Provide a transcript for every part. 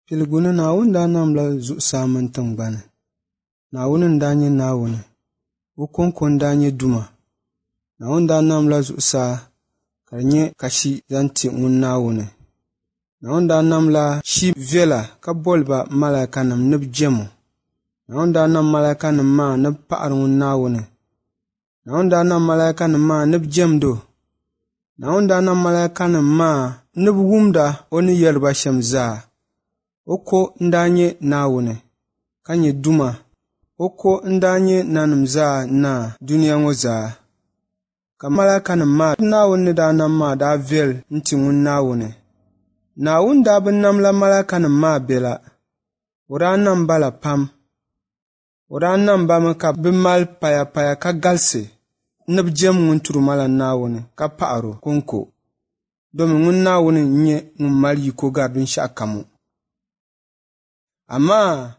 Piligu ni Naawuni daa namla zuɣusaa mini tiŋgbani. Naawuni n-daa nyɛ Naawuni. O kɔŋko n-daa nyɛ Duuma. Naawuni daa namla zuɣusaa ka di nyɛ kashi zaŋ ti ŋun Naawuni. Naawuni daa namla shi viɛla ka boli ba malaikanim ni bɛ jɛm o. Naawuni daa nam malaikanim maa ni bɛ paɣiri ŋun Naawuni. Naawuni daa nam malaikanim maa ni bɛ jɛmdi o. Naawuni daa nam malaikanim maa ni bɛ wumda o ni yɛri ba shɛm zaa. O ko n-daa nyɛ Naawuni, ka nyɛ Duuma. O ko n-daa nyɛ nanim zaa Naa dunia ŋɔ zaa. Ka malaikanim maa Naawuni ni daa nam maa daa viɛl n-ti ŋun Naawuni. Naawuni daa bi namla malaikanim maa bela, o daa nam ba la pam. O daa nam ba mi ka bɛ mali payapaya ka galisi ni bɛ jɛm ŋun Turimala Naawuni ka paɣir o kɔŋko, domi ŋun Naawuni n-nyɛ ŋun mali yiko gari binshɛɣukam ŋɔ. Amaa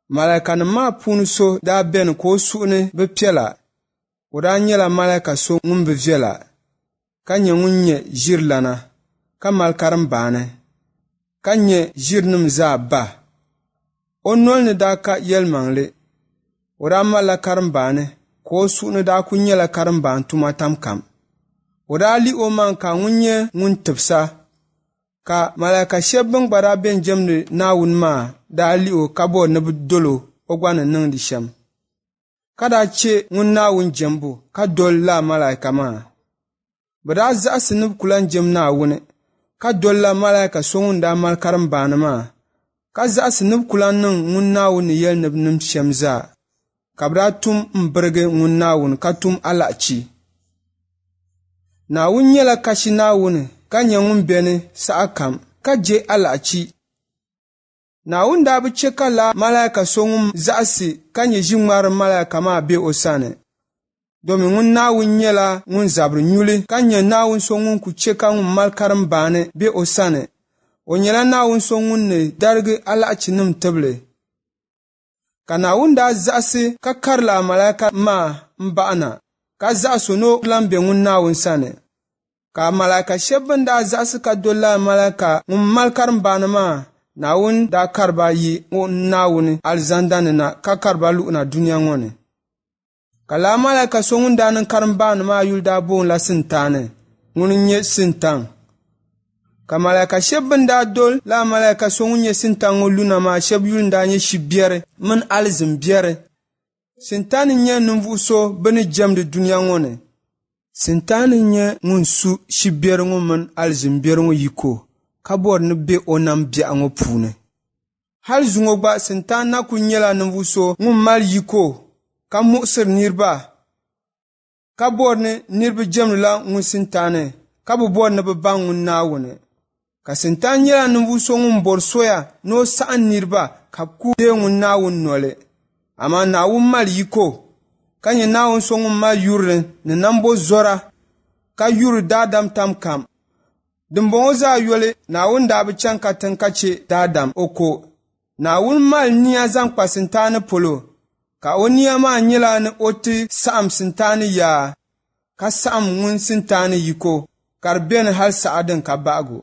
malaikanim maa puuni so daa beni ka o suhu ni bi piɛla. O daa nyɛla malaika so ŋun bi viɛla, ka nyɛ ŋun nyɛ ʒirilana, ka mali karimbaani, ka nyɛ ʒirinim zaa ba. O noli ni daa ka yɛlimaŋli. O daa malila karimbaani, ka o suhu ni daa kul nyɛla karimbaani tuma tam kam. O daa lih omaŋ ka ŋun nyɛ ŋun tibisa, ka malaika shɛb bɛn gba daa bɛn jɛmdi Naawuni maa daa lih o ka bɔri ni bɛ dol o o gba ni niŋdi shɛm, ka daa chɛ ŋun Naawuni jɛmbu ka doli lala malaika maa. Bɛ daa zaɣisi ni bɛ ku lan jɛm Naawuni, ka dolila malaika so ŋun daa mali karimbaani maa, ka zaɣisi ni bɛ ku lan niŋ ŋun Naawuni ni yɛli ni bɛ niŋm shɛm zaa, ka bɛ daa tum m-birigi ŋun Naawuni ka tum alahichi. Naawuni nyɛla kashi Naawuni ka nyɛ ŋun beni sahakam, ka je alahichi. Naawuni daa bi chɛ ka lala malaika so ŋun zaɣisi ka nyɛ ʒiŋmarilim malaika maa be o sani, domi ŋun Naawuni nyɛla ŋun zabiri nyuli ka nyɛ Naawuni so ŋun ku chɛ ka ŋun mali karimbaani be o sani. O nyɛla Naawuni so ŋun ni darigi alahichinim tibili. Ka Naawuni daa zaɣisi ka kari lala malaika maa m-baɣi na, ka zaɣis o ni o lan be ŋun Naawuni sani. Ka malaika shɛb bɛn daa zaɣisi ka doli lala malaika ŋun mali karimbaani maa, Naawuni daa kari ba yi ŋun Naawuni alizanda ni na ka kari ba luɣina dunia ŋɔ ni. Ka lala malaika so ŋun daa niŋ karimbaani maa yuli daa boonila Sintani, ŋuni n-nyɛ Sintaŋ. Ka malaika shɛb bɛn daa doli lala malaika so ŋun nyɛ Sintaŋ ŋɔ luna maa shɛb yuli n-daa nyɛ Shibiɛri mini alizin biɛri. Sintani n-nyɛ ninvuɣ so bɛ ni jɛmdi dunia ŋɔ ni. Sintani n-nyɛ ŋun su shibiɛri ŋɔ mini alizin biɛri ŋɔ yiko ka bɔri ni bɛ be o nam biɛɣu ŋɔ puuni. Hal zuŋɔ gba Sintani na kul nyɛla ninvuɣ so ŋun mali yiko ka muɣisiri niriba, ka bɔri ni niriba jɛmdila ŋun Sintani ka bi bɔri ni bɛ baŋ ŋun Naawuni. Ka Sintani nyɛla ninvuɣ so ŋun bɔri soya ni o saɣim niriba ka bɛ ku deei ŋun Naawuni noli. Amaa Naawuni mali yiko, ka nyɛ Naawuni so ŋun mali yurili ni nambɔzɔra, ka yuri daadam tam kam. Dimbɔŋɔ zaa yoli, Naawuni daa bi chaŋ katiŋ ka chɛ daadam o ko. Naawuni mali nia zaŋ kpa Sintani polo, ka o nia maa nyɛla ni o ti saɣim Sintani yaa, ka saɣim ŋun Sintani yiko, ka di beni hal saha din ka bahigu.